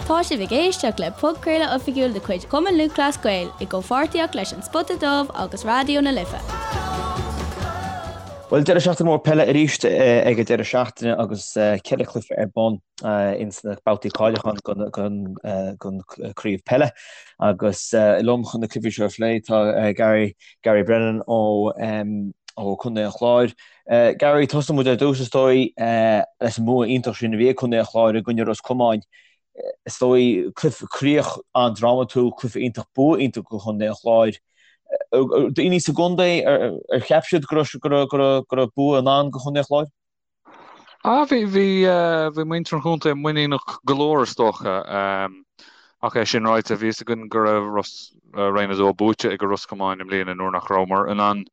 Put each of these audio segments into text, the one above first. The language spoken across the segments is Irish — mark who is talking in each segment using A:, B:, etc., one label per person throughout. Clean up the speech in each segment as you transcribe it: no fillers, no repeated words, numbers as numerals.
A: Tá sibh ag éisteacht le podchraoladh oifigiúil de chuid Chumann Lúthchleas Gael i gcomhpháirtíocht leis An Spota Dubh agus Raidió na Life.
B: Bhuel, deireadh seachtaine mór peile arís ag an deireadh seachtaine agus 4 chluiche ar bun ins na babhtaí cáiliúcháin don chraobh peile. Agus liom chun na cluichí seo a phlé tá Gary, Gary Brennan ó Chontae an Chláir. Gary, tosóidh muid ar dtús is dóigh leis an mbua iontach sin a bhí ag Contae an Chláir i gcoinne Ros Comáin. Is dóigh, cluiche, críoch an-drámatúil, cluiche iontach, bua iontach do Chontae an Chláir. Daoine sa gcontae, ar cheap siad go raibh bua i ndán do Chontae an Chláir?
C: Ah, bhí, bhí, bhí muintir an chontae muiníneach go leor is dócha. Ach é sin ráite, bhí fhios againn go raibh Ros, Roinn 2 buaite ag Ros Comáin i mbliana nuair nach rabhamar in ann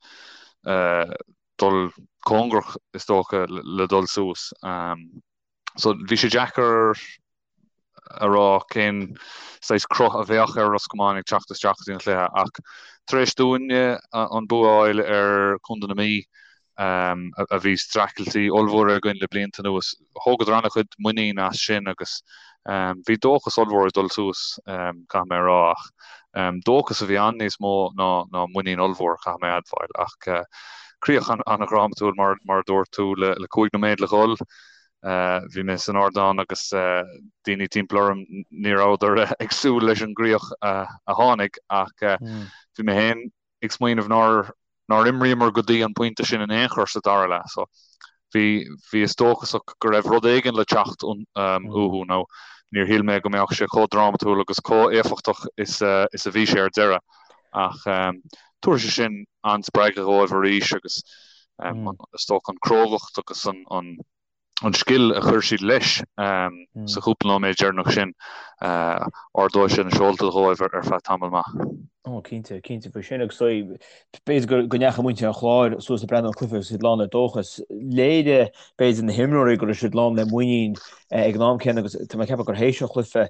C: dul cóngarach is dócha le dul suas. So bhí sé deacair a rá cén saghas cruth a bheadh ar Ros Comáin ag teacht isteach go dtí an chluiche ach tar éis dúinne an bua a fháil ar Chontae na Mí, a bhí streachailtí ollmhór againn le blianta anuas, thógadar an-chuid muinín as sin agus bhí dóchas ollmhór ag dul suas, caithfidh mé a rá. Ach dóchas a bhí ann níos mó ná muinín ollmhór, caithfidh mé a admháil. Ach críoch an-dhrámatúil mar a dúirt tú le 5 nóiméad le dhul. Bhí mé san ardán agus daoine timpeall orm, ní rabhadar ag súil leis an gcríoch a tháinig ach bhí mé féin ag smaoineamh nár nár imríomar go dtí an pointe sin in aon chor sa dara leath. So bhí bhíos dóchasach go raibh rud éigin le teacht uathu nó níor shíl mé go mbeadh sé chomh drámatúil agus chomh éifeachtach is is a bhí sé ar deireadh. Ach tabharfaidh sé sin an-spreagadh dhóibh arís agus is dócha an crógacht agus an an scil a chuir siad leis sa chúpla nóiméad deireanach sin, ardóidh sé na seolta dhóibh ar feadh tamall maith.
B: Ó, cinnte, cinnte faoi sin agus b'fhéidir go ndeachaigh muintir an Chláir suas ag breathnú ar an cluiche agus iad lán le dóchas. Léirigh, b'fhéidir, na himreoirí go raibh siad lán le muinín ag an am céanna agus tá mé ag ceapadh gur théis an chluiche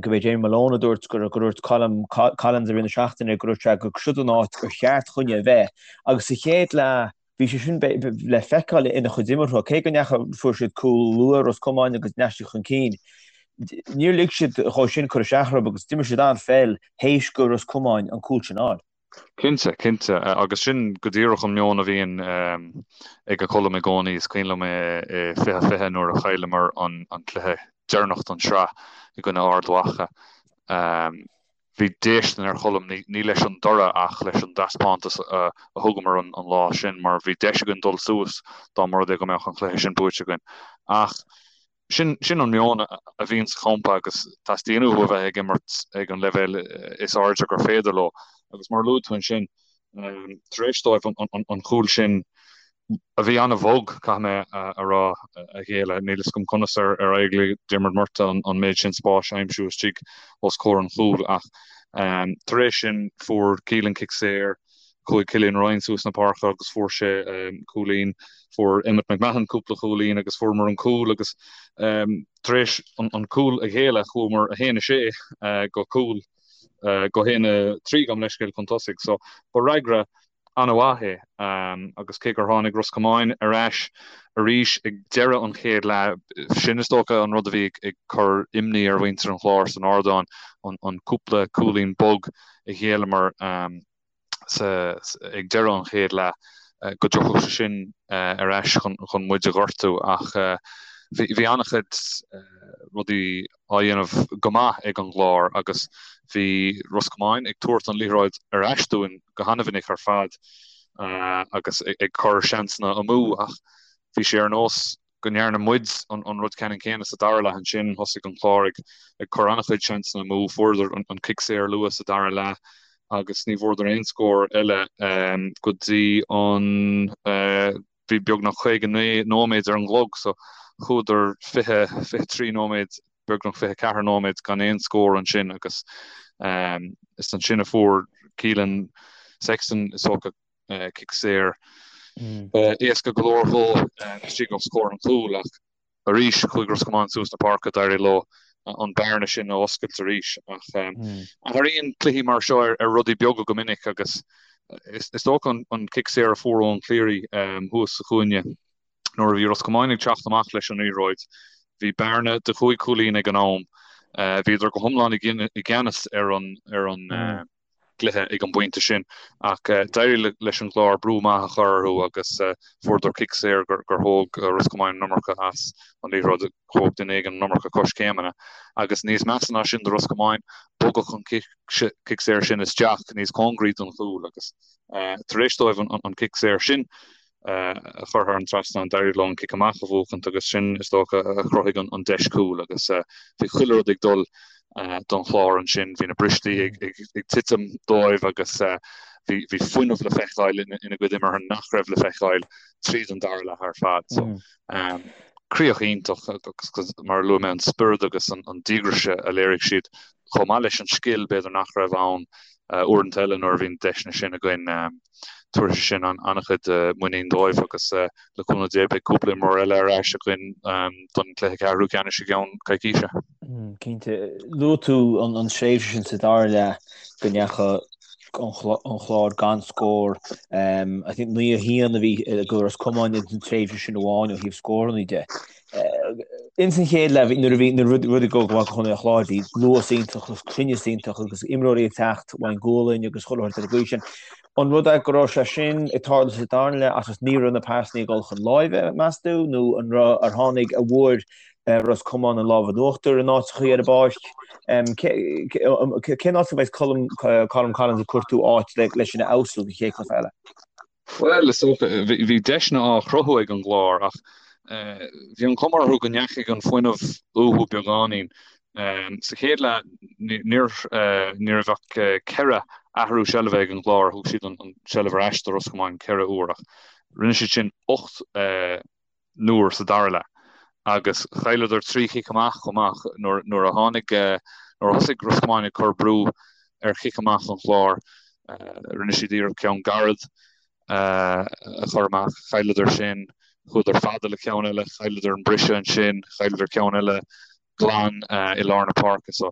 B: go b'é Jamie Malone a dúirt gur dúirt Colm Collins i rith na seachtaine go dúirt sé gur siod an áit gur cheart dhúinne a bheith agus sa chéad leath Bhí sé sin le feiceáil ina chuid imeartha, cé go ndeachaigh, fuair siad cúl luath, Ros Comáin, agus ndeachaigh siad chun cinn. Níor lig siad dhó sin cur isteach orthu agus d'imir siad an-pheil théis go Ros Comáin an cúl sin a fháil.
C: Cinnte, cinnte. Agus sin go díreach an meon a bhíonn ag Colm i gcónaí. Is cuimhin liom i 2020 nuair a chailleamar an cluiche deireanach don tsraith i gcoinne Ard Mhacha. Bhí déistin ar Cholm, ní leis an dtoradh ach leis an dtaispeántas a thugamar an lá sin mar bhí deis againn dul suas dá mba rud é go mbeadh an cluiche sin buaite againn. Ach sin sin an meon a bhíonn sa champa agus teastaíonn uathu a bheith ag imirt ag an leibhéal is airde gur féidir leo. Agus mar a luaigh tú ansin, tar éis dóibh an cúl sin a bhí an-bhog, caithfidh mé a rá, a ghéilleadh. Níl fhios agam conas ar éirigh le Diarmuid Murtagh an méid sin spáis a aimsiú istigh os comhair an chúil ach tar éis sin fuair Keelan cic saor, chuaigh Cillian Ryan suas na páirce agus fuair sé cúilín, fuair Emmet McMahon cúpla cúilín agus fuaireamar an cúl agus tar éis an cúl a ghéilleadh chuamar 1-6 go cúl go 1-3 gabh mo leithscéal chun tosaigh. So ba fhreagra an-mhaith é agus cé gur tháinig Ros Comáin ar ais arís ag deireadh an chéad leath, sin is dócha an rud a bhí ag cur imní ar mhuintir an Chláir san ardán, an cúpla cúilín bog a ghéilleamar ag deireadh an chéad leath, go dtiocfadh sé sin ar ais chun muid a ghortú ach bhí an-chuid rudaí á dhéanamh go maith ag an gClár agus bhí Ros Comáin ag tabhairt an liathróid ar ais dúinn go han-mhinic ar fad agus ag cur seansanna amú ach bhí sé ar nós go ndearna muid an rud ceannann céanna sa dara leath ansin. Thosaigh an Clár ag cur an-chuid seansanna amú, fuaireadar an cic saor luath sa dara leath agus ní bhfuaireadar aon scór eile go dtí an Bhí beagnach 59 nóiméad ar an gclog so chuadar 20, 23 nóiméad, beagnach 24 nóiméad gan aon scór ansin agus is ansin a fuair Keelan Sexton is dócha cic saor éasca go leor dhó istigh os comhair an chúil ach Arís, chuaigh Ros Comáin suas na páirce, d'éirigh leo an bearna sin a oscailt arís. Ach athraíonn cluichí mar seo ar rudaí beaga go minic agus is dócha an cic saor a fuair Eoin Cleary thuas sa chúinne nuair a bhí Ros Comáin ag teacht amach leis an liathróid, bhí bearna de chúig chúilín ag an am. Bhíodar go hiomlán i gceannas ar an ar an gcluiche ag an bpointe sin ach d'éirigh leis an gClár brú maith a chur orthu agus fuaireadar cic saor gur thóg Ros Comáin an iomarca as an liathróid, thóg duine éigin an iomarca coiscéimeanna agus níos measa ná sin do Ros Comáin, bogadh an cic saor sin isteach níos cóngaraí don chúl agus tar éis dóibh an cic saor sin a chur thar an trasnán, d'éirigh leo an cic amach a bhuachaint agus sin, is dócha, a chruthaigh an deis cúil agus bhí chuile rud ag dul don Chlár ansin. Bhí na bristí ag titim dóibh agus bhí fuinneamh le feiceáil ina gcuid imeartha nach raibh le feiceáil tríd an dara leath ar fad. So, críoch iontach agus mar a luaigh mé, an spiorad agus an díograis a léirigh siad chomh maith leis an scil, b'fhéidir nach raibh ann uaireanta eile nuair a bhíonn deiseanna sin againn. Tabharfaidh sé sin an-chuid muinín dóibh agus le cúnamh Dé beidh cúpla imreoir eile ar ais againn don chluiche ceathrú ceannais i gceann coicíse.
B: Cinnte. Luaigh tú an tréimhse sin sa dara leath go ndeachaigh an Chlár gan scór. I think 9-1 a bhí ag Ros Comáin ins an tréimhse sin amháin ó thaobh scóranna de. Ins an chéad leath, nuair a bhí na rudaí ag dul go maith do Chontae an Chláir, bhí luas iontach agus cruinneas iontach agus imreoirí ag teacht ón ngualainn agus chuile shórt ar an gcaoi sin. An rud é go raibh sé sin ag tarlú sa darna leath agus ní raibh na pasanna ag dul chun láimhe, meas tú, nó an raibh, ar tháinig, an bhfuair Ros Comáin an lámh in uachtar in áiteachaí ar an bpáirc? Cén áit a mbeidh Colm Collins ag cuartú áit leis sin a fheabhsú don chéad chluiche eile?
C: Bhuel, is dócha, bhí deiseanna á chruthú ag an gClár ach bhí an chuma orthu go ndeachaigh an fuinneamh uathu beagáinín. Sa chéad leath, ní raibh ach ceithre athrú seilbhe ag an gClár, thug siad an tseilbh ar ais do Ros Comáin ceithre uair ach rinne siad sin 8 n-uair sa dara leath agus chailleadar 3 chic amach chomh maith nuair a tháinig, nuair a thosaigh Ros Comáin ag cur brú ar chic amach an Chláir. Rinne siad iarracht ceann gairid a chur amach, chailleadar sin, chuadar fada le ceann eile, chailleadar an briseadh ansin, chailleadar ceann eile glan i lár na páirce. So,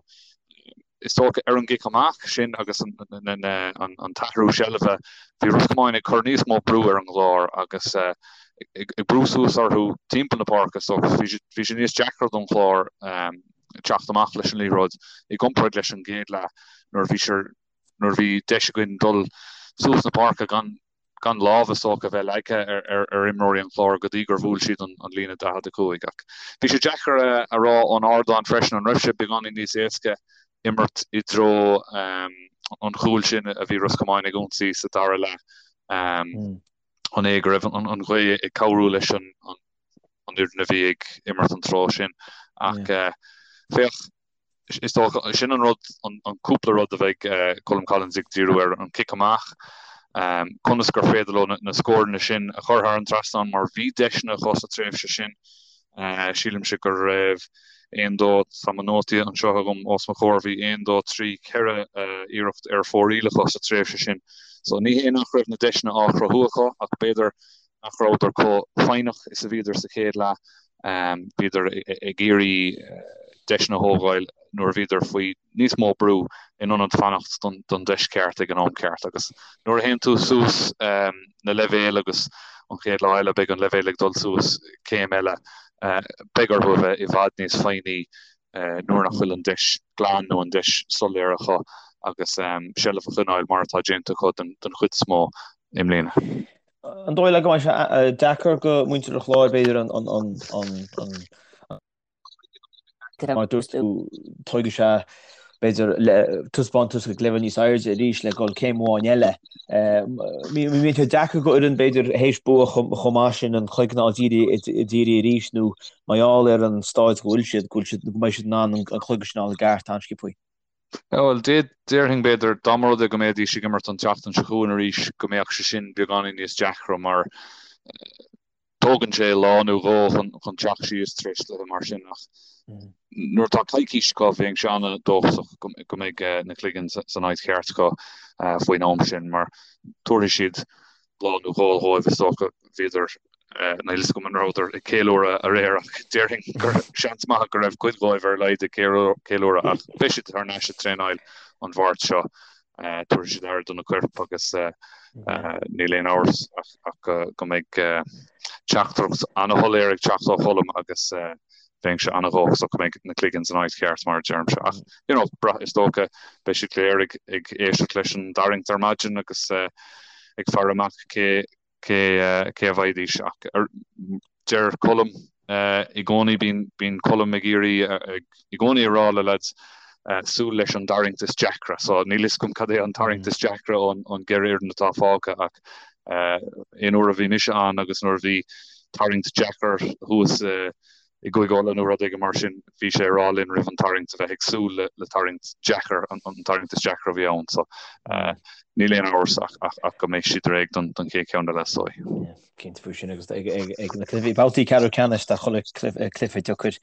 C: is dócha ar an gcic amach sin agus an t-athrú seilbhe, bhí Ros Comáin ag cur níos mó brú ar an gClár agus ag brú suas orthu timpeall na páirce so bhí sé níos deacra don Chlár teacht amach leis an liathróid i gcomparáid leis an gcéad leath nuair a bhí nuair a bhí deis againn dul suas na páirce gan gan lámh is dócha a bheith leagtha ar imreoirí an Chláir go dtí gur bhuail siad an líne 45. Ach bhí sé deacair a rá ón ardán freisin an raibh sé beagáinín níos éasca imirt i dtreo an chúil sin a bhí Ros Comáin ag ionsaí sa dara leath. An é go raibh an ghaoth ag cabhrú leis an fhoireann a bhí ag imirt an treo sin? Ach féach, Is dócha, sin an rud, an cúpla rud a bheidh Colm Collins ag díriú air, an cic amach, conas gur féidir leo na scóranna sin a chur thar an trasnán mar bhí deiseanna acu sa tréimhse sin. Sílimse go raibh aon, dó, tá mo nótaí anseo agam os mo chomhair, bhí aon, dó, trí, ceithre iarracht ar fóraoil acu sa tréimhse sin. So ní hé nach raibh na deiseanna á chruthú acu ach b'fhéidir nach rabhadar chomh foighneach is a bhíodar sa chéad leath. Bhíodar ag iarraidh deiseanna a thógáil nuair a bhíodar faoi níos mó brú in ionad fanacht don deis cheart ag an am ceart. Agus nuair a théann tú suas na leibhéil agus an chéad lá eile beidh an leibhéal ag dul suas céim eile, beidh orthu a bheith i bhfad níos foighní nuair nach bhfuil an deis glan nó an deis soiléir acu agus seilbh a choinneáil mar atá déanta acu den chuid is mó i mbliana.
B: An dóigh leat go mbeidh sé deacair go muintir an Chláir b'fhéidir an mar dúirt tú tógfaidh sé b'fhéidir le taispeántas ag leibhéal níos airde arís le dhul céim amháin eile. Mbíonn sé deacair go fhoireann b'fhéidir théis bua chomh maith sin an cloigeann a fháil dírithe arís nó mar gheall ar an staid go bhfuil siad go bhfuil siad go mbeidh siad in ann an cloigeann sin a fháil i gceart an-sciobtha.
C: Bhuel, déarfainn, b'fhéidir, dá mba rud é go mbeidís ag imirt an tseachtain seo chugainn arís, go mbeadh sé sin beagáinín níos deacra mar tógann sé lá nó dhó chun teacht síos tar éis cluiche mar sin ach nuair atá coicís acu, bheinnse an-dóchasach go mbeidh na cloigeann san áit cheart acu faoin am sin mar tabharfaidh siad lá nó dhó dhóibh, is dócha. Bhíodar, níl a fhios agam an rabhadar ag ceiliúradh aréir ach déarfainn gur seans maith go raibh cuid dhóibh ar a laghad ag ceiliúradh ach beidh siad thar n-ais ag traenáil an Mháirt seo. Tabharfaidh siad aire do na coirp agus níl aon amhras ach go mbeidh teachtaireacht an-shoiléir ag teacht ó Cholm agus. Bheinnse an-dhóchasach go mbeidh na cloiginn san áit cheart, mar a deirimse. Ach, you know, is dócha, beidh siad go léir ag ag éisteacht leis an dtarraingt ar maidin agus ag faire amach cé cé cé a bhfaighidís. Ach deir Colm i gcónaí, bíonn bíonn Colm ag iarraidh i gcónaí a rá le lads súil leis an dtarraingt is deacra. So níl fhios agam cad é an tarraingt is deacra ón ón gceithre fhoireann atá fágtha ach aon uair a bhí mise ann agus nuair a bhí tarraingt deacair thuas i gCúige Uladh nó rud éigin mar sin, bhí sé ag rá linn roimh an tarraingt a bheith ag súil le tarraingt deacair, an tarraingt is deacra a bhí ann. So níl aon amhras ach go mbeidh siad réidh don chéad cheann eile is dóigh.
B: Cinnte faoi sin agus ag na cluichí, babhtaí ceathrú ceannais tá chuile cluiche deacair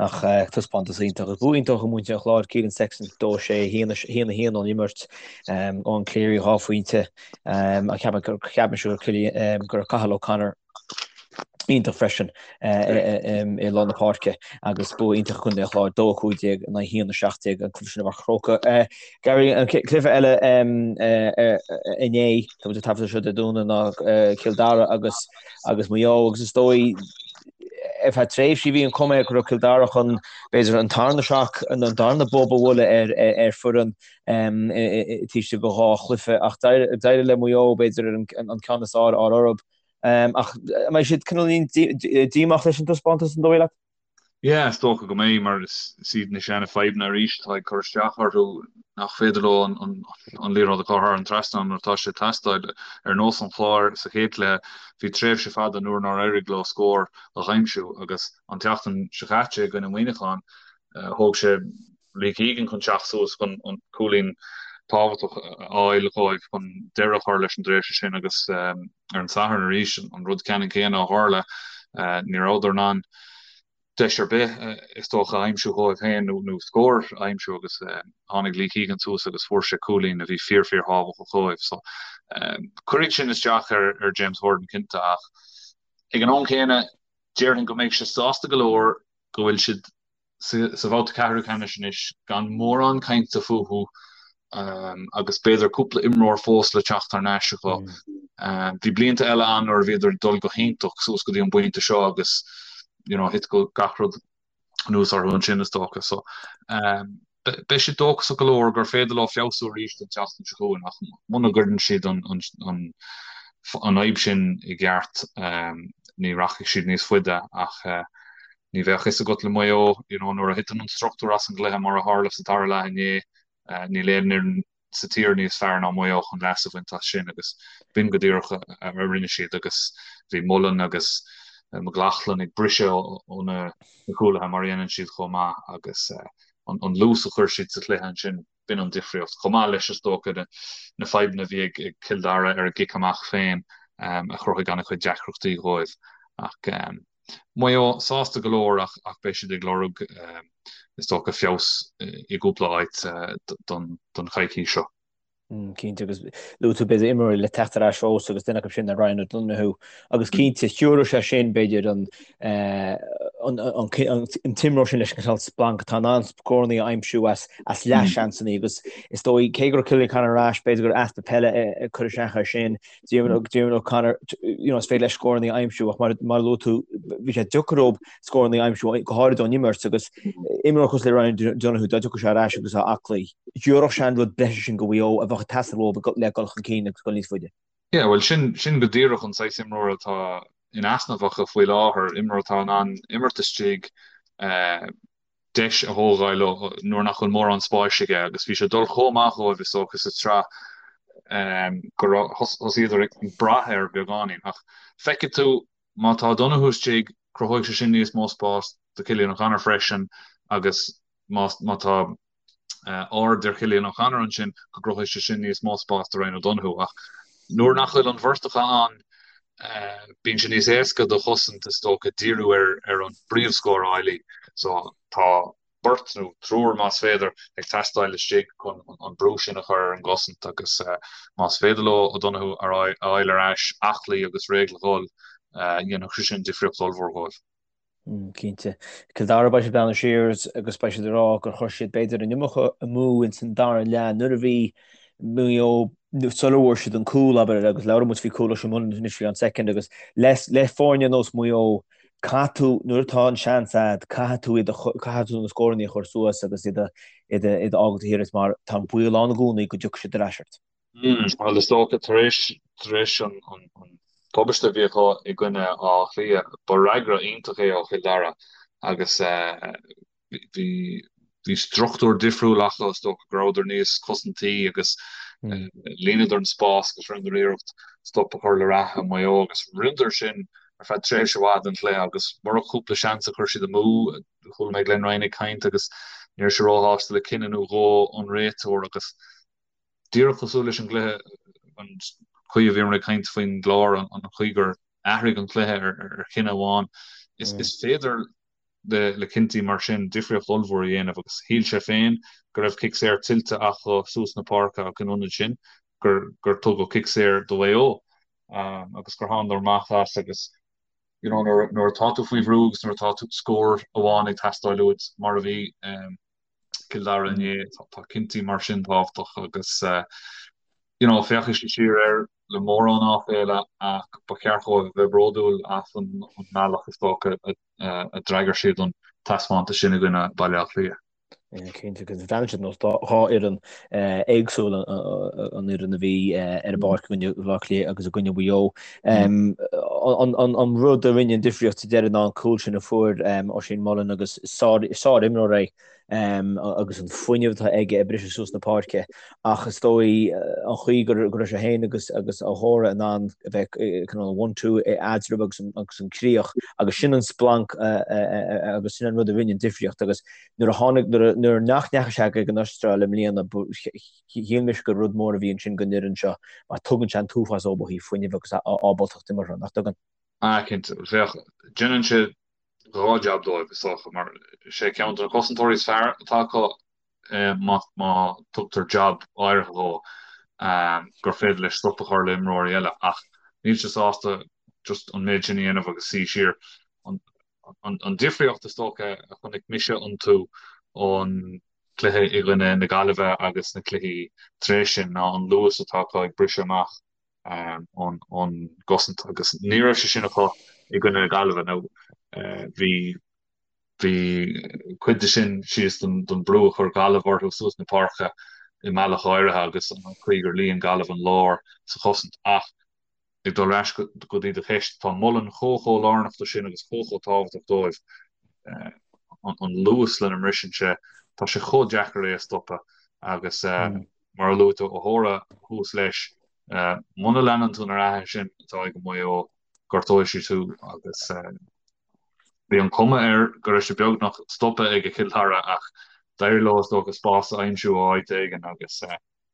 B: ach taispeántas iontach agus bua iontach ag muintir an Chláir, Keelan Sexton 2 6 1 1 1 ón imirt, Eoin Cleary 2 phointe, ach ceapaim go raibh Cathal O'Connor iontach freisin i lár na páirce agus bua iontach ag Contae an Chláir, 2 15 in aghaidh 1 17 an cluiche sin i bPáirc an Chrócaigh. Gary, an cluiche eile inné, tá muid ag taifeadadh seo Dé Domhnaigh ná Cill Dara agus agus Maigh Eo agus is dóigh ar feadh tréimhsí bhí an chuma air go raibh Cill Dara chun b'fhéidir an tarna shock, an darna bob a bhualadh ar ar foireann taobh istigh de dhá chluiche ach d'éirigh le Maigh Eo b'fhéidir an ceann is fearr a fháil orthu. Ach an mbeidh siad cineál díomách leis an taispeántas, an dóigh leat?
C: Yeah, is dócha go mbeidh, mar is iad na seana fadhbanna arís atá ag cur isteach orthu, nach féidir leo an liathróid a chur thar an trasnán nuair atá sé ag teastáil. Ar nós an Chláir sa chéad chluiche, bhí tréimhse fada nuair nár éirigh leo scór a aimsiú agus an tseachtain seo caite i gcoinne Mhuineacháin, thóg sé Lee Keegan chun teacht suas chun an cúilín tábhachtach a fháil dhóibh chun deireadh a chur leis an dtréimhse sin agus ar an Satharn arís an rud ceannann céanna a tharla. Ní rabhadar in ann deis ar bith is dócha a aimsiú dhóibh féin nó scór a aimsiú agus tháinig Lee Keegan suas agus fuair sé cúilín a bhí fíor fíor thábhachtach dhóibh. So cuirfidh sin isteach ar ar James Horan cinnte ach ag an am céanna déarfainn go mbeidh sé sásta go leor go bhfuil siad sa bhabhta ceathrú ceannais anois gan mórán cainte fúthu agus b'fhéidir cúpla imreoir fós le teacht thar n-ais acu. Bhí blianta eile ann nuair a bhíodar ag dul go hiontach suas go dtí an bpointe seo agus you know thit gach rud anuas orthu ansin is dócha. So beidh siad dóchasach go leor gur féidir leo feabhsú arís don tseachtain seo chugainn ach muna gcuireann siad an an fhadhb sin i gceart ní rachaidh siad níos faide ach Ní bheadh fhios agat le Maigh Eo, you know, nuair a thiteann an struchtúr as an gcluiche mar a tharla sa dara leath inné, níl aon fhoireann sa tír níos fearr ná Maigh Eo chun leas a bhaint as sin agus b'in go díreach a rinne siad agus bhí Mullen agus McLaughlin ag briseadh ó na cúlaithe mar a dhéanann siad chomh maith agus an luas a chuir siad sa chluiche ansin, b'in an difríocht. Chomh maith leis, is dócha, na fadhbanna a bhí ag Cill Dara ar a gcic amach féin a chruthaigh an-chuid deacrachtaí dhóibh. Ach Maigh Eo sásta go leor ach beidh siad ag lorg, is dócha, feabhas i gcúpla áit don choicís seo.
B: Cinnte, agus luaigh tú b'fhéidir imreoirí le teacht ar ais fós agus duine acu sin ná Ryan O'Donoghue agus cinnte thiúrfadh sé sin b'fhéidir an an t-imreoir sin leis an cineál splanc atá in ann scóranna a aimsiú as as leathsheansanna agus is dóigh cé go raibh Cillian O'Connor ar ais b'fhéidir gur easpa peile ag cur isteach air sin Diarmuid O'Connor, you know, is féidir leis scóranna a aimsiú ach mar mar a luaigh tú, bhí sé deacair dóibh scóranna a aimsiú go háirid ón imirt agus imreoir cosúil le Ryan Donoghue dá dtiocfadh sé ar ais agus á aclaí, thiúrfadh sé an rud breise sin go Mhaigh Eo a bheadh ag teastáil uathu le dul chun cinn agus dul níos faide.
C: Yeah, bhuel sin sin go díreach an saghas imreora atá in easnamh acu faoi láthair, imreoir atá in ann imirt istigh, eh, deis a thógáil nuair nach bhfuil mórán spáis aige agus bhí sé ag dul chomh maith dhóibh is dócha sa tsraith go raibh thosaíodar ag brath air beagáinín. Ach feicfidh tú má tá Donoghue istigh cruthóidh sé sin níos mó spáis do Cillian O'Connor freisin agus má má tá aird ar Chillian O'Connor ansin go gcruthóidh sé sin níos mó spáis do Ryan O'Donoghue. Ach nuair nach bhfuil an bheirt acu ann bíonn sé níos éasca do chosaint is dócha díriú ar ar an bpríomhscórálaí so tá beirt nó triúr más féidir ag teastáil istigh chun an brú sin a chur ar an gcosaint agus más féidir leo O'Donoghue a fháil ar ais aclaí agus réidh le dhul dhéanfadh sé sin difríocht ollmhór dhóibh.
B: Cinnte. Cill Dara, beidh siad ag breathnú siar agus beidh siad ag rá gur chuir siad b'fhéidir an iomarca amú ins an dara leath nuair a bhí Maigh Eo sula bhfuair siad an cúl, abair, agus labhair muid faoi cúl Oisín Mullin anois faoi an soicind agus le foirne ar nós Maigh Eo. Caithfidh tú, nuair atá an seans a'd, caithfidh tú iad a, caithfidh tú na scóranna a chur suas agus iad a, iad a, iad a fhágáil taobh thiar díot mar tá an baol ann i gcónaí go dtiocfaidh siad ar ais ort.
C: Bhuel, is dócha, tar éis, tar éis an, an, an tubaiste a bhí acu i gcoinne Átha Cliath, ba fhreagra iontach é ó Chill Dara agus bhí, bhí struchtúr difriúil acu, is dócha go rabhadar níos cosantaí agus líonadar an spás agus rinneadar iarracht stop a chur le rath Mhaigh Eo agus rinneadar sin ar feadh tréimhse mhaith den chluiche agus murach cúpla seans a chuir siad amú, chuala mé Glenn Ryan ag caint agus ní raibh sé róshásta le cinneadh nó dhó ón réiteoir agus díreach cosúil leis an gcluiche, an chaoi a bhíomar ag caint faoin gClár, an chaoi gur athraigh an cluiche ar chinneadh amháin, is féidir le cinntí mar sin difríocht ollmhór a dhéanamh agus shíl sé féin go raibh cic saor tuillte acu suas na páirce ach in ionad sin gur gur tugadh cic saor do Mhaigh Eo agus gur thánadar amach as agus you know nuair nuair atá tú faoi bhrú agus nuair atá tú scór amháin ag teastáil uait mar a bhí Cill Dara inné, tá cinntí mar sin tábhachtach agus you know féachfaidh siad siar air le mórán áiféala ach ba cheart dóibh a bheith bródúil as an mbealach is dócha a d'fhreagair siad an taispeántas sin i gcoinne Baile Átha Cliath.
B: Cinnte, agus bhreathnaigh siad ar nós dhá fhoireann éagsúil, an fhoireann a bhí ar an bpáirc i gcoinne Bhaile Átha Cliath agus i gcoinne Mhaigh Eo. An rud a rinne an difríocht sa deireadh ná an cúl sin a fuair Oisín Mullin agus sár-imreoir é agus an fuinneamh atá aige ag briseadh suas na páirce ach is dóigh an chaoi go raibh sé féin agus agus O'Hora in ann a bheith cineál one-two eatarthu agus agus an críoch agus sin an splanc agus sin an rud a rinne an difríocht agus nuair a tháinig nuair nach ndeachaigh sé ag an Astráil i mbliana shíl mise gur rud mór a bhí ansin don fhoireann seo mar tugann sé an t-uafás dóibh ó thaobh fuinnimh agus ábaltacht imeartha, nach dtugann?
C: Ah cinnte, féach, déanann sé 2 jab dóibh, is dócha, mar is é ceann de na cosantóirí is fearr atá acu má tugtar jab áirithe dhó gur féidir leis stop a chur le imreoirí eile ach níl sé sásta just an méid sin a dhéanamh agus suí siar. An difríocht is dócha a chonaic mise iontu ón gcluiche i gcoinne na Gaillimhe agus na cluichí tar éis sin ná an luas atá acu ag briseadh amach. ón gcosaint agus ní raibh sé sin acu i gcoinne na Gaillimhe nó bhí bhí cuid de sin síos don brú a chuir Gaillimh orthu suas na páirce i mbealach áirithe agus an chaoi gur líon Gaillimh an lár sa chosaint ach ag dul ar ais go dtí do cheist, tá Mullen chomh chomh lárnach do sin agus chomh chomh tábhachtach dóibh an luas lena mbriseann sé, tá sé chomh deacair é a stopadh agus Mar a luaigh tú, O'Hora thuas leis. Muna leanann tú na reatha sin atá ag Maigh Eo, gortóidh siad thú agus bhí an cuma air go raibh sé beagnach stoptha ag Cill Dara ach d'éirigh leo is dócha spás a aimsiú ó áit éigin agus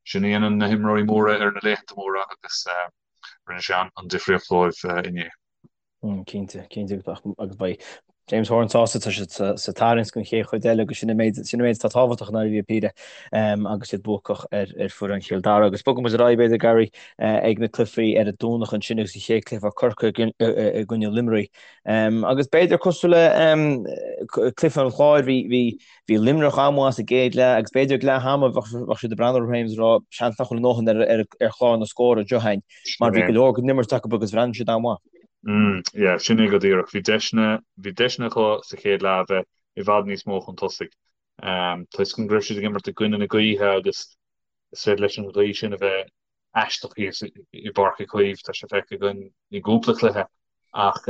C: sin a dhéanann na himreoirí móra ar na laethanta móra agus rinne sé an difríocht dóibh inné.
B: Cinnte, cinnte agus beidh James Horan sásta tá siad sa tarraingt don chéad chuid eile agus sin an méid sin an méid atá tábhachtach i ndáiríre píre agus iad buacach ar ar foireann Chill Dara agus bogfaidh muid ar aghaidh b'fhéidir Gary ag na cluichí ar an Domhnach ansin agus an chéad cluiche Corcaigh i gcoinne Luimnigh agus b'fhéidir cosúil le cluiche an Chláir bhí bhí bhí Luimneach an-mhaith sa gcéad leath agus b'fhéidir ag leath ama bheadh siad ag breathnú orthu féin agus ag rá seans nach bhfuil a ndóthain ar ar ar chlár na scór anseo againn mar bhí go leor den imirt acu agus bhreathnaigh siad an-mhaith.
C: Yeah, sin é go díreach. Bhí deiseanna, bhí deiseanna acu sa chéad leath a bheith i bhfad níos mó chun tosaigh. Toisc go raibh siad ag imirt i gcoinne na gaoithe agus is féidir leis an ghaoth sin a bheith aisteach thíos i bPáirc Uí Chaoimh, tá sé feicthe againn i gcúpla cluiche ach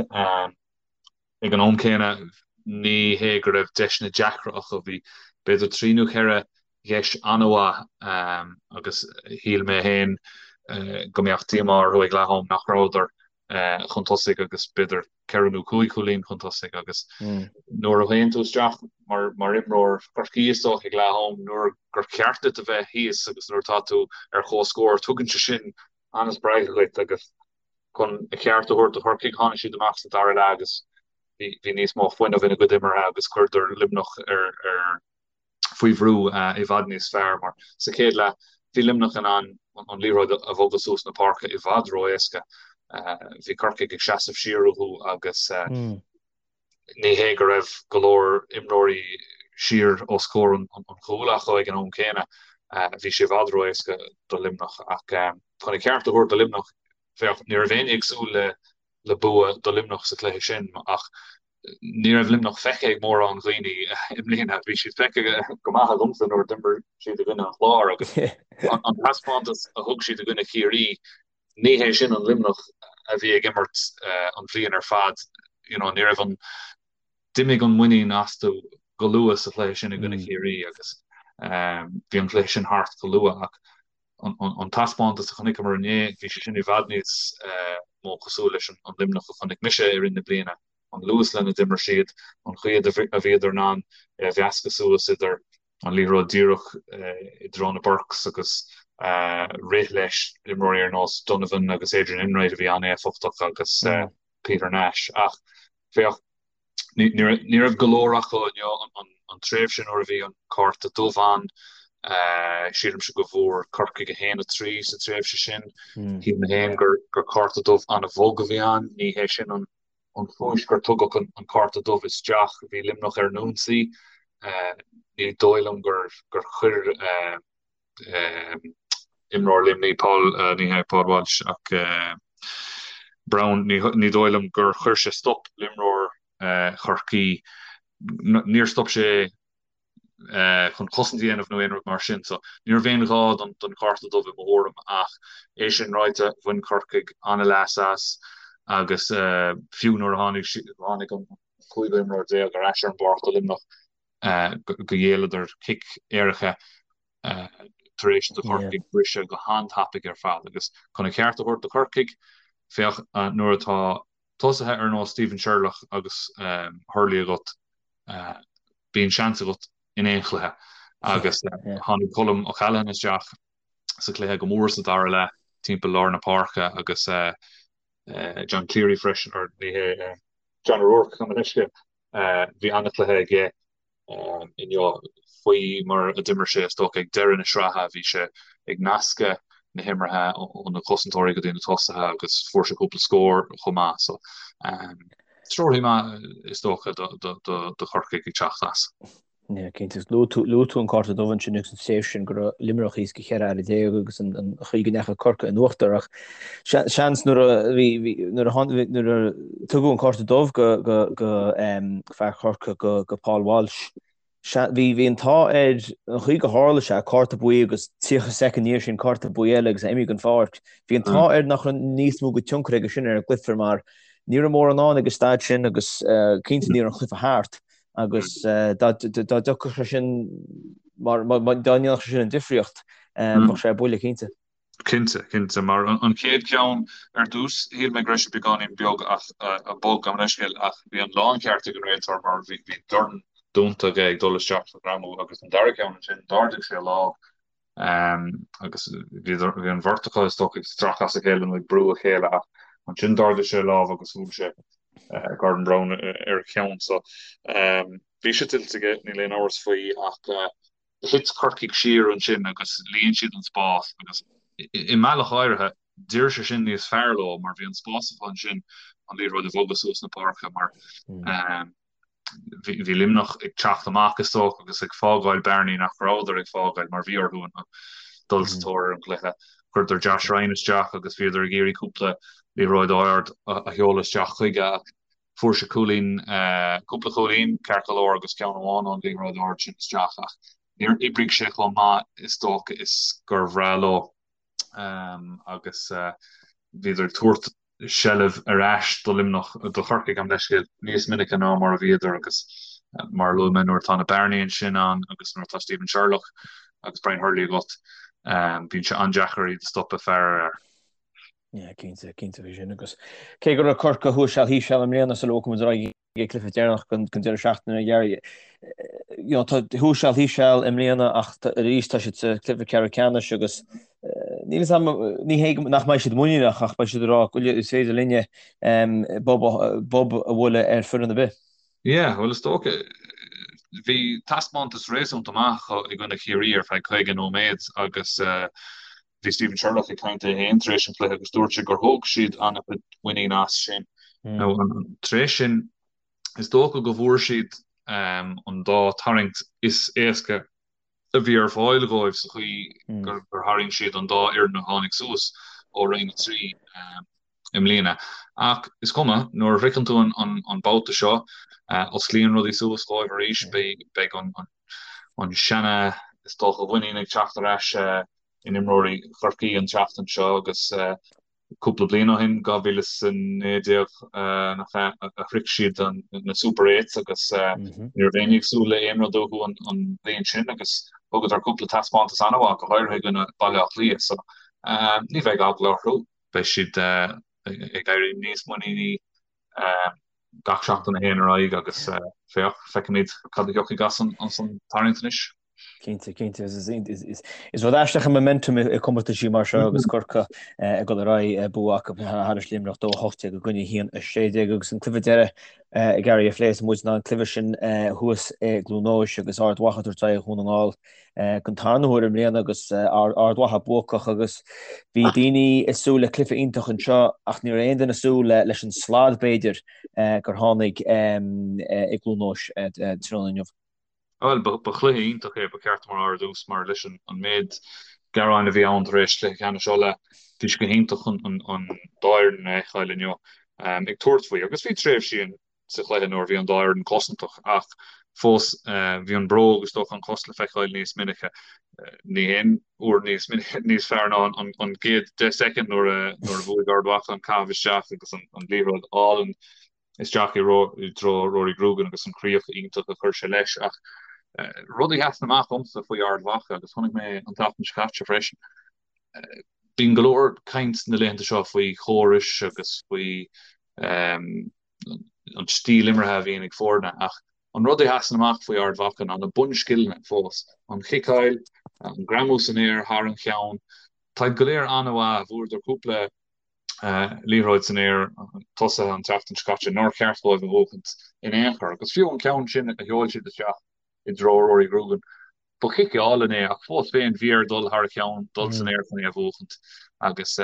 C: Ag an am céanna, ní hé go raibh deiseanna deacra acu, bhí b'fhéidir 3 nó 4 dheis an-mhaith agus shíl mé féin go mbeadh díomá orthu ag leath-am nach rabhadar chun tosaigh agus b'fhéidir ceithre nó cúig chúilín chun tosaigh agus nuair a théann tú isteach mar mar imreoir Chorcaí is dócha ag leath-am nuair gur cheart duit a bheith thíos agus nuair atá tú ar comhscór tugann sé sin an-spreagadh dhuit agus Chun a cheart a thabhairt do Chorcaigh, tháinig siad amach sa dara leath agus bhí níos mó fuinnimh ina gcuid imeartha agus chuireadar Luimneach ar faoi bhrú i bhfad níos fearr mar sa chéad leath bhí Luimneach in ann an liathróid a bhogadh suas na páirce i bhfad ró-éasca. Bhí Corcaigh ag seasamh siar uathu agus ní hé go raibh go leor imreoirí siar os comhair an chúil acu ag an am céanna. Bhí sé i bhfad ró-éasca do Luimneach ach chun a cheart a thabhairt do Luimneach, féach, ní raibh éinne ag súil le bua do Luimneach sa chluiche sin ach. Ní raibh Luimneach feicthe ag mórán dhaoine i mbliana. Bhí siad feicthe go maith agamsa nuair a d'imir siad i gcoinne an Chláir agus an taispeántas a thug siad i gcoinne Chiarraí, ní hé sin an Luimneach a bhí ag imirt an bhliain ar fad. You know, ní raibh an, d'imigh an muinín astu go luath sa chluiche sin i gcoinne Chiarraí agus bhí an cluiche sin thart go luath ach an taispeántas a chonaiceamar inné, bhí sé sin i bhfad níos mó cosúil leis an Luimneach a chonaic mise i rith na bliana, an luas lena d'imir siad, an chaoi a bhíodar in ann é a mheascadh suas idir an liathróid díreach i dtreo na Burkes agus rith leis imreoirí ar nós Donovan agus Adrian Enright a bhí an-éifeachtach agus Peter Nash. Ach féach, Ní raibh go leor acu inniu an tréimhse nuair a bhí an cárta dubh ann. Sílimse go bhfuair Corcaigh 1-3 sa tréimhse sin. Shíl mé féin gur cárta dubh an-bhog a bhí ann. Ní hé sin an chúis gur tugadh an cárta dubh isteach. Bhí Luimneach ar an ionsaí. Ní dóigh liom gur chuir imreoir Luimnigh, Paul, ní hé Paul Walsh ach Browne, ní dóigh liom gur chuir sé stop le imreoir Chorcaí, níor stop sé chun cosaint a dhéanamh nó aon rud mar sin. So ní raibh aon ghá don chárta dubh i mo thuairim ach é sin ráite, bhain Corcaigh an-leas as agus fiú nuair a tháinig tháinig an cúigiú imreoir déag ar ais ar an bpáirc do Luimneach, go ghéilleadar cic éirice tar éis do Chorcaigh briseadh go han-tapaidh ar fad. Agus chun an ceart a thabhairt do Chorcaigh, féach nuair atá tosaithe ar nós Stephen Sherlock agus Hurley agat, bíonn seans agat in aon chluiche. Agus tháinig Colm O'Callaghan isteach sa chluiche go mór sa dara leath timpeall lár na páirce agus John Cleary freisin, or ní hé, John O'Rourke, gabh mo leithscéal. Bhí an-chluiche aige inniu faoi mar a d'imir sé is dócha ag deireadh na sraithe. Bhí sé ag nascadh na himeartha ó na cosantóirí go dtí na tosaithe agus fuair sé cúpla scór chomh maith. So treoraí maith is dócha do Chorcaigh ag teacht as.
B: Yeah, cinnte. Luaigh tú, luaigh tú an cárta dubh ansin agus an tréimhse sin go raibh Luimneach thíos go 14 fhear agus an, an chaoi go ndeachaigh Corcaigh in uachtar ach seans nuair a bhí, bhí, nuair a tháinig, nuair a tugadh an cárta dubh go, go, go um, fear Chorcaí go, go Paul Walsh, bhí, bhí an t-ádh air an chaoi go tharla sé, cárta buí agus 30 soicind ina dhiaidh sin cárta buí eile agus é imithe den pháirc. Bhí an t-ádh air nach raibh níos mó de tionchar aige sin ar an gcluiche mar ní raibh mórán ann ag an staid sin agus uh, cinnte ní raibh an cluiche thart. agus dá dtiocfadh sé sin, mar dá ndéanfadh sé sin an difríocht, bheadh sé ar buile, cinnte.
C: Cinnte, cinnte, mar an chéad cheann ar dtús, shíl mé go raibh sé beagáinín beag ach, bog, gabh mo leithscéal, ach bhí an láncheart ag an réiteoir mar bhí dorn dúnta aige ag dul isteach sa ghreamú agus an dara ceann ansin, d'ardaigh sé a lámh agus bhí an bheirt acu is dócha ag stracadh as a chéile nó ag brú a chéile ach ansin d'ardaigh sé a lámh agus bhuail sé Gordon Browne ar a cheann. So bhí sé tuillte aige, níl aon amhras faoi ach thit Corcaigh siar ansin agus líon siad an spás agus i mbealach áirithe d'oir sé sin níos fearr leo mar bhí an spás acu ansin an liathróid a bhogadh suas na páirce mar bhí Luimneach ag teacht amach is dócha agus ag fágáil bearnaí nach rabhadar ag fágáil mar bhí orthu dul sa tóir ar an gcluiche. Chuireadar Josh Ryan isteach agus bhíodar ag iarraidh cúpla liathróid ard a sheoladh isteach chuige ach fuair sé cúilín, cúpla cúilín ceart go leor agus ceann amháin ón liathróid ard sin isteach ach níor oibrigh sé chomh maith is dócha is gur bhreá leo agus bhíodar ag tabhairt seilbh ar ais do Luimneach, do Chorcaigh, gabh mo leithscéal, níos minice ná mar a bhíodar agus mar a luaigh mé nuair atá na bearnaí ansin ann agus nuair atá Stephen Sherlock agus Brian Hurley agat, bíonn sé an-deacair iad a stopadh fear ar fhear.
B: Yeah, cinnte, cinnte faoi sin agus cé go raibh Corcaigh thuas seal thíos seal i mbliana sula bhfágfaidh muid ar aghaidh ag an gcluiche deireanach den deireadh seachtaine a Ghearaidh. You know, tá thuas seal thíos seal i mbliana ach arís tá siad sa cluiche ceathrú ceannais agus níl fhios agam, ní hé nach mbeidh siad muiníneach ach beidh siad ag rá go is féidir linne bob a bhualadh ar foireann ar bith.
C: Yeah, bhuel is dócha, bhí taispeántas réasúnta maith acu i gcoinne Chiarraí ar feadh 50 nóiméad agus Bhí Stephen Sherlock ag caint é féin tar éis an chluiche agus dúirt sé gur thóg siad an-chuid muinín as sin. Now, tar éis sin, is dócha go bhfuair siad an dá tarraingt is éasca a bhí ar fáil dhóibh sa chaoi gur tharraing siad an dá fhoireann a tháinig suas ó Roinn 3. i mbliana. Ach is cuma, nuair a shroicheann tú an babhta seo, osclaíonn rudaí suas dhóibh arís, beidh an seana, is dócha, mhuinín ag teacht ar ais in imreoirí Chorcaí an tseachtain seo agus cúpla bliain ó shin, 2019 nach ea, a shroich siad na Super Eights agus ní raibh éinne ag súil le aon rud uathu an bhliain sin agus thugadar cúpla taispeántas an-mhaith, go háirithe i gcoinne Baile Átha Cliath. So ní bheidh eagla orthu, beidh siad ag éirí níos muiníní gach seachtain a théann ar aghaidh agus féach, feicfimid cad a thiocfaidh as an tarraingt anois.
B: Cinnte, cinnte. Is rud aisteach an momentum i comórtaisí mar seo agus Corcaigh ag dul ar aghaidh bua acu thairis Luimneach 2-18 i gcoinne 1-16 agus an cluiche deiridh ag Gary a phléifidh muid ná an cluiche sin thuas i gCluain Eois agus Ard Mhacha ag tabhairt aghaidh ar Dhún na nGall don tarna huair i mbliana agus Ard Mhacha buacach agus bhí daoine ag súil le cluiche iontach anseo ach ní raibh aon duine ag súil leis an slad b'fhéidir gur tháinig i gCluain Eois tráthnóna inniu.
C: Bhuel, ba chluiche iontach é, ba cheart dom a rá ar dtús, mar leis an méid gearáin a bhí ann tar éis chluiche ceannais Uladh, bhí sé go hiontach an dá fhoireann a fheiceáil inniu ag tabhairt faoi. Agus bhí tréimhsí sa chluiche nuair a bhí an dá fhoireann cosantach, ach fós bhí an bróg, is dócha, an chos le feiceáil níos minice. Ní haon uair níos níos fearr ná an gcéad 10 soicind nuair a bhuaigh Ard Mhacha an caitheamh isteach agus an liathróid álainn isteach i dtreo Rory Grugan agus an chríoch iontach a chuir sé leis. Ach rud a sheasann amach dhomsa faoi Ard Mhacha, agus chonaic mé an tseachtain seo caite freisin, bíonn go leor caint na laethanta seo faoi chórais agus faoi an stíl imeartha a bhíonn ag foirne, ach an rud a sheasann amach faoi Ard Mhacha ná na bunscileanna fós, an chiceáil, an greamú san aer thar an cheann, táid go léir an-mhaith, bhuadar cúpla liathróid san aer tosaithe an tseachtain seo caite nár cheart dóibh a bhuachaint in aon chor. Agus fiú an ceann sin a sheol siad isteach i dtreo Rory Grugan, ba chic álainn é ach fós féin bhí air dul thar a cheann, dul san aer chun é a bhuachaint. Agus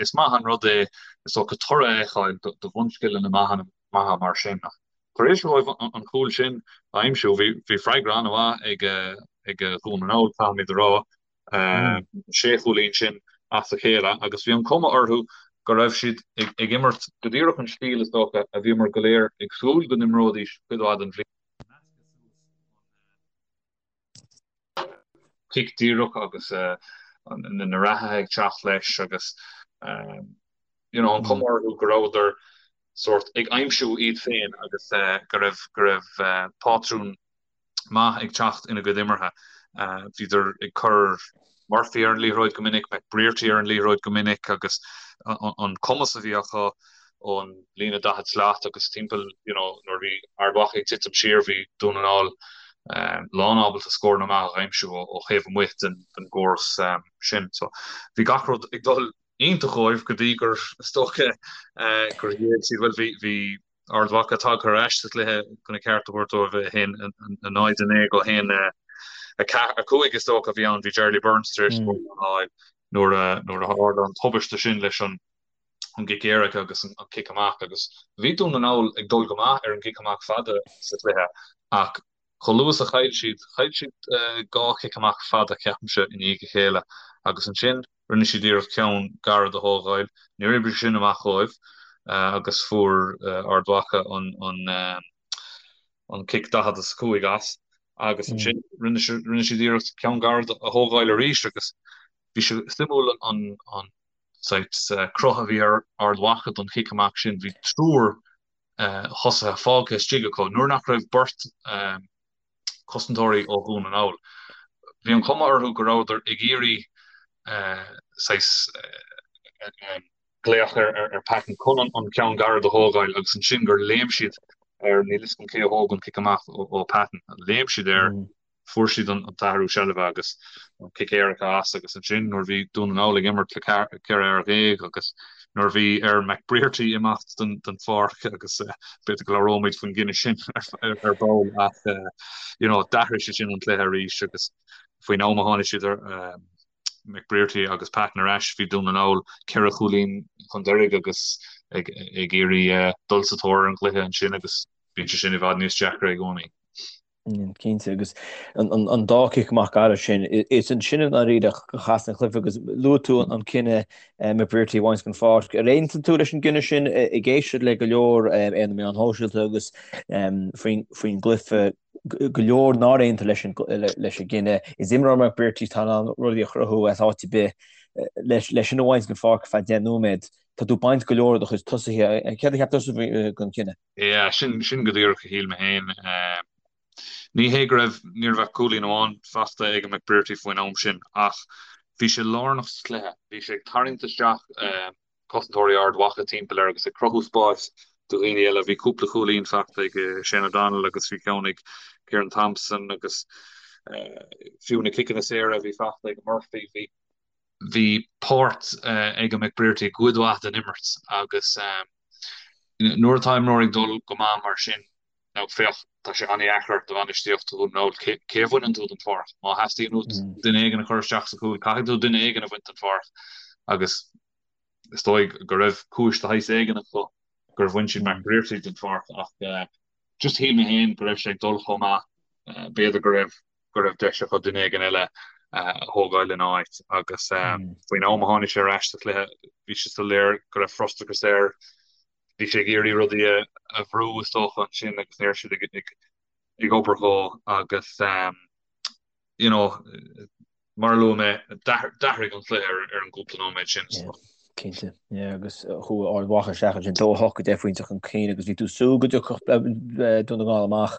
C: is maith an rud é is dócha toradh a fheiceáil do bhunscileanna maithe mar sin. Ach tar éis dóibh an cúl sin a aimsiú, bhí freagra an-mhaith ag Dhún na nGall, caithfimid a rá. sé chúilín sin as a chéile agus bhí an cuma orthu go raibh siad ag imirt go díreach an stíl is dócha a bhíomar go léir ag súil go n-imreoidís cuid mhaith den bhliain. Cic díreach agus na reathaithe ag teacht leis agus you know an cuma orthu go rabhadar sórt ag aimsiú iad féin agus go raibh go raibh pátrún maith ag teacht ina gcuid imeartha. Bhíodar ag cur Murphy ar an liathróid go minic, McBrearty ar an liathróid go minic agus an cumas a bhí acu ón líne 40 slat agus timpeall you know nuair a bhí Ard Mhacha ag titim siar bhí Dún na nGall lán ábalta scóranna maith a aimsiú ó thaobh amuigh den gcóras sin. So bhí gach rud ag dul iontach dhóibh go dtí gur is dócha gur ghéill siad bhuel bhí bhí Ard Mhacha tagtha ar ais sa chluiche chun a ceart a thabhairt dóibh, 1-0, 9 go 1, 5 is dócha a bhí ann. Bhí Charlie Burns tar éis scór a fháil nuair a nuair a tharla an tubaiste sin leis an an gcic éirice agus an cic amach agus bhí Dún na nGall ag dul go maith ar an gcic amach fada sa chluiche ach chomh luath is a chaill siad, chaill siad dhá chic amach fada ceapaimse i ndiaidh a chéile agus ansin Rinne siad iarracht ceann gairid a thógáil. Níor oibrigh sin amach dhóibh agus fuair Ard Mhacha an cic 45 as agus ansin rinne siad iarracht ceann gairid a thógáil arís agus bhí sé suimiúil an saghas cruth a bhí ar Ard Mhacha don chic amach sin. Bhí triúr thosaithe fágtha istigh acu nuair nach raibh beirt cosantóirí ó Dhún na nGall. Bhí an chuma orthu go rabhadar ag iarraidh saghas glaoch ar Patton chun an ceann gairid a thógáil agus ansin gur léim siad ar, níl fhios agam cé a thóg an cic amach ó Patton, léim siad air Fuair siad an t-athrú seilbhe agus an cic éirice as agus ansin nuair a bhí Dún na nGall ag imirt le 14 fear agus nuair a bhí ar McBrearty imeacht den pháirc agus b'fhéidir go labhróimid faoin gcinneadh sin ar ball ach you know d'athraigh sé sin an cluiche arís agus faoin am a tháinig siad ar McBrearty agus Patton ar ais bhí Dún na nGall ceithre chúilín chun deiridh agus ag iarraidh dul sa tóir ar an gcluiche ansin agus bíonn sé sin i bhfad níos deacra i gcónaí.
B: Cinnte, agus an dá chic amach gairid sin, is ansin i ndáiríre a chas an cluiche agus luaigh tú an cinneadh McBrearty a bhaint den pháirc. Ar aontaigh tú leis an gcinneadh sin ag éisteacht le go leor ar na meáin shóisialta agus faoin gcluiche, go leor nár aontaigh leis an gcinneadh. Is imreoir McBrearty atá in ann rudaí a chruthú as áit ar bith. Leis sin a bhaint den pháirc ar feadh 10 nóiméad, tá tú ag baint go leor de do chuid tosaithe. Céard a cheap tusa den chinneadh?
C: Yeah, sin, sin go díreach a shíl mé féin. Ní hé go raibh, ní raibh ach cúilín amháin faighte ag McBrearty faoin am sin ach bhí sé lárnach sa chluiche. Bhí sé ag tarraingt isteach cosantóirí Ard Mhacha timpeall air agus ag cruthú spáis do dhaoine eile. Bhí cúpla cúilín faighte ag Shane O'Donnell agus bhí ceann ag Kieran Thompson agus fiú na ciceanna saora a bhí faighte ag Murphy, bhí bhí páirt ag McBrearty i gcuid mhaith den imirt agus nuair atá imreoir ag dul go maith mar sin, now féach, tá sé an-dheacair do bhainistíocht Dhún na nGall, cé a bhaineann tú den pháirc? Má theastaíonn uait duine éigin a chur isteach sa chúl, caithfidh tú duine éigin a bhaint den pháirc agus is dóigh go raibh cúis de shaghas éigin acu gur bhain siad McBrearty den pháirc ach just shíl mé féin go raibh sé ag dul chomh maith, b'fhéidir go raibh go raibh deis acu duine éigin eile a thógáil ina áit agus faoin am a tháinig sé ar ais sa chluiche bhí sé soiléir go raibh frustrachas air. Bhí sé ag iarraidh rudaí a bhrú is dócha ansin agus ní raibh siad ag obair dhó agus you know mar a luaigh mé d'athraigh an cluiche ar an gcúpla nóiméad sin.
B: Cinnte, yeah, agus chuaigh Ard Mhacha isteach ansin 2 8 10 phointe chun cinn agus bhí tú ag súil go dtiocfadh Dún na nGall amach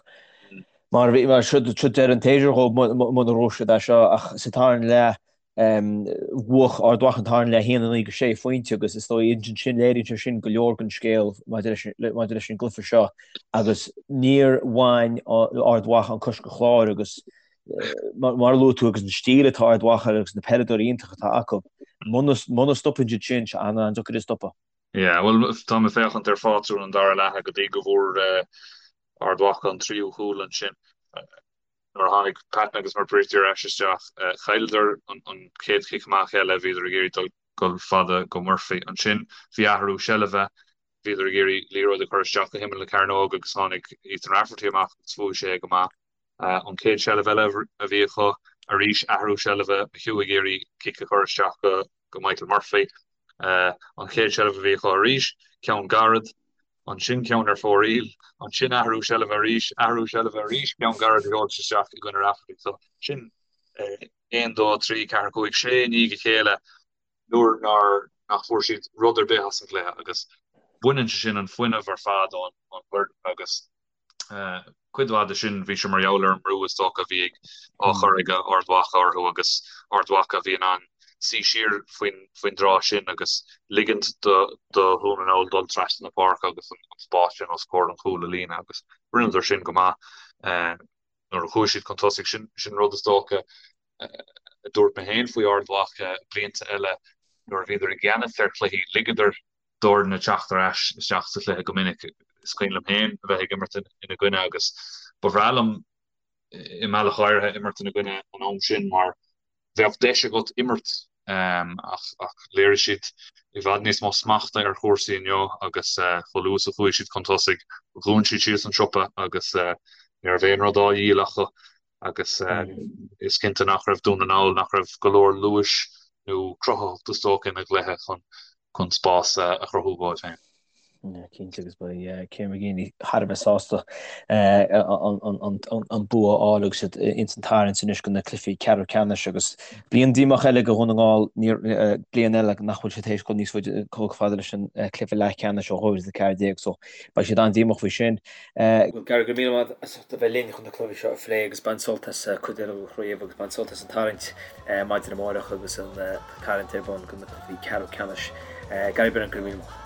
B: mar bhí mar seo seo deireadh an tséasúir dhóibh muna raibh siad é seo ach sa tarna leath bhuaigh Ard Mhacha an tarna leath 1 9 go 6 phointe agus is dóigh ansin léiríonn sé sin go leor den scéal maidir leis maidir leis an gcluiche seo agus níor bhain Ard Mhacha an cois den chlár agus Mar a luaigh tú, agus an stíl atá Ard Mhacha agus na peileadóirí iontacha atá acu, muna stopann siad sin, tá sé an-deacair a stopadh.
C: Yeah, bhuel, tá mé ag féachaint ar phátrún an dara leatha go dtí go bhfuair Ard Mhacha an tríú cúl ansin. Nuair a tháinig Patton agus McBrearty ar ais isteach, chailleadar an chéad chic amach eile, bhíodar ag iarraidh dul fada go Murphy. Ansin bhí athrú seilbhe, bhíodar ag iarraidh liathróid a chur isteach go himeall na cearnóige agus tháinig Ethan Rafferty amach agus bhuaigh sé é go maith. An chéad seilbh eile a bhí acu, arís athrú seilbhe, McHugh ag iarraidh cic a chur isteach go Michael Murphy. An chéad seilbh a bhí acu arís, ceann gairid, ansin ceann ar fóraoil, ansin athrú seilbhe arís, athrú seilbhe arís, ceann gairid a sheol sé isteach i gcoinne Rafferty. So sin 1, 2, 3, 4, 5, 6 i ndiaidh a chéile nuair nár nach bhfuair siad rud ar bith as an gcluiche agus baineann sé sin an fuinneamh ar fad ón bhfoireann agus Cuid mhaith de sin, bhí sé mar gheall ar an mbrú is dócha a bhí á chur ag Ard Mhacha orthu agus Ard Mhacha a bhí in ann suí siar faoin dtráth sin agus ligint do Dhún na nGall dul trasna na páirce agus an spás sin os comhair an chúil a líonadh agus rinneadar sin go maith nuair a chuaigh siad chun tosaigh. Sin rud is dócha a dúirt mé féin faoi Ard Mhacha blianta eile nuair a bhíodar i gceannas ar chluichí, ligeadar d'fhoirne teacht ar ais isteach sa chluiche go minic. Is cuimhin liom féin a bheith ag imirt ina gcoinne agus ba bhreá liom i mbealach áirithe imirt ina gcoinne an am sin mar bheadh deis agat imirt ach ach léirigh siad i bhfad níos mó smachta ar chúrsaí inniu agus chomh luath is a chuaigh siad chun tosaigh dhún siad síos an siopa agus ní raibh aon rud á dhíol acu agus is cinnte nach raibh Dún na nGall, nach raibh go leor luais nó cruthaitheacht is dócha ina gcluiche chun chun spás a chruthú dóibh féin.
B: Cinnte agus beidh Kieran McGeeney thar a bheith sásta an bua a fháil agus iad ins an tarraingt anois do na cluichí ceathrú ceannais agus bliain díomách eile do Dhún na nGall, bliain eile nach bhfuil siad théis dul níos faide chomh fada leis an cluiche leathcheannais ó 2014 so beidh siad an-díomách faoi sin. Bhuel Gary, go raibh míle maith agat as ucht a bheith linn chun na cluichí seo a phlé agus bain sult as cuid eile den chraobh agus bain sult as an tarraingt maidin amárach agus an tarraingt ar bun do na cluichí ceathrú ceannais. Gary Brennan, go raibh míle maith.